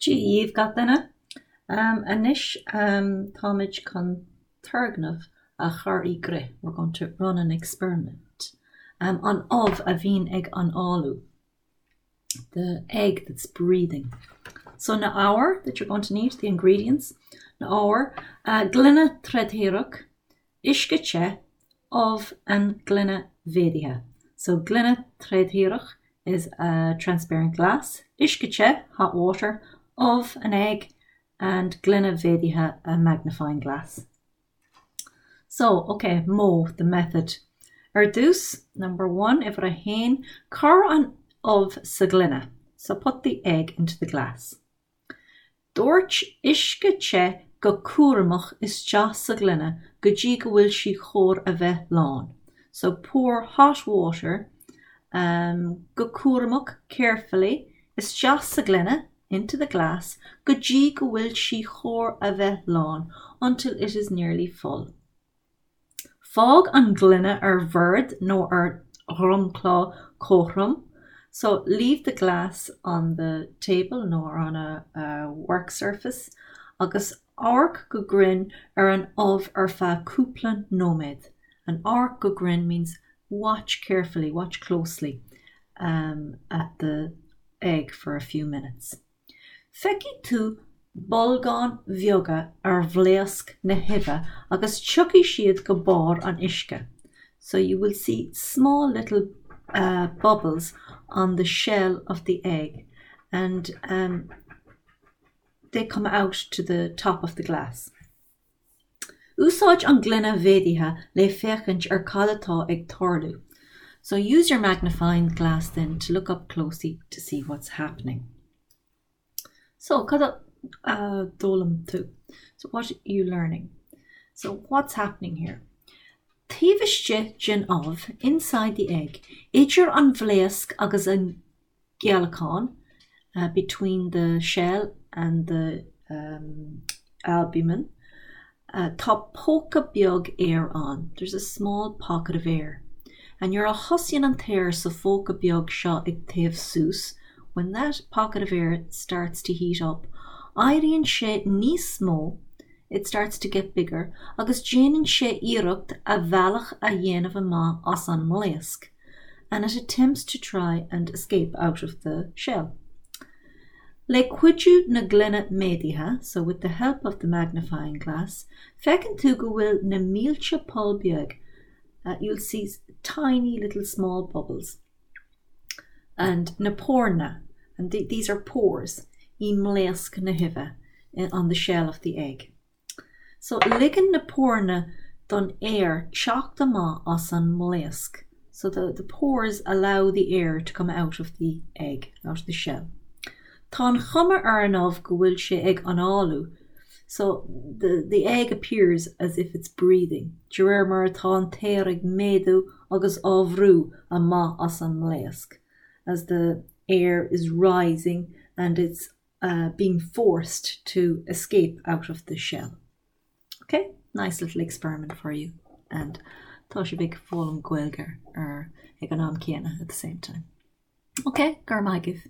Dia dhaoibh gach duine. Anois táimid chun turgnamh a chur i gcrích, we're going to run an experiment. An ubh a bhíonn ag análú, the egg that's breathing. So na hábhair that you're going to need, the ingredients, na hábhair, gloine trédhearach, uisce te, ubh and gloine mhéadaithe. So gloine trédhearach is a transparent glass, uisce te, hot water, ubh, an egg, and gloine mhéadaithe, a magnifying glass. So, ok, modh, the method. Ar dtús, number one, uimhir a haon, cuir an ubh sa ghloine. So put the egg into the glass. Doirt uisce te go cúramach isteach sa ghloine go dtí go bhfuil sí chóir a bheith lán. So pour hot water go cúramach, carefully, isteach sa ghloine, into the glass, go dtí go bhfuil sí chóir a bheith lán, until it is nearly full. Fág an ghloine ar bhord nó ar dhromchla cothrom, so leave the glass on the table nó on a work surface, agus amharc go grinn ar an ubh ar feadh cúpla nóiméad. And amharc go grinn means watch carefully, watch closely at the egg for a few minutes. Feicfidh tú bolgáin bheaga ar bhlaosc na huibhe agus tiocfaidh siad go barr an uisce, so you will see small little bubbles on the shell of the egg and they come out to the top of the glass. Úsáid an ghloine mhéadaithe le féachaint ar cad atá ag tarlú. So use your magnifying glass then to look up closely to see what's happening. So cad a d'fhoghlaim tú? So what are you learning? So what's happening here? Taobh istigh den ubh, inside the egg, idir an bhlaosc agus an gceallacán, between the shell and the albumen, tá póca beag aeir ann, there's a small pocket of air. And nuair a thosaíonn an t-aer sa phóca beag seo ag téamh suas, when that pocket of air starts to heat up, éiríonn sé níos mó, it starts to get bigger, agus déanann sé iarracht a bhealach a dhéanamh amach as an mblaosc. and it attempts to try and escape out of the shell. Le cuidiú na gloine méadaithe, so with the help of the magnifying glass, feiceann tú go bhfuil na mílte poll beag, you'll see tiny little small bubbles, and na póireanna, and these are pores, i mblaosc na huibhe, on the shell of the egg. So, ligeann na póireanna don aer teacht amach as an mblaosc. So the the pores allow the air to come out of the egg, out of the shell. Tá an chuma ar an ubh go bhfuil sé ag análú. So the the egg appears as if it's breathing, de réir mar atá an t-aer ag méadú agus á bhrú amach as an mblaosc, as the air is rising and it's being forced to escape out of the shell. Ok, nice little experiment for you and tá sibh ag foghlaim Gaeilge ar ag an am céanna at the same time. Ok, go raibh maith agaibh.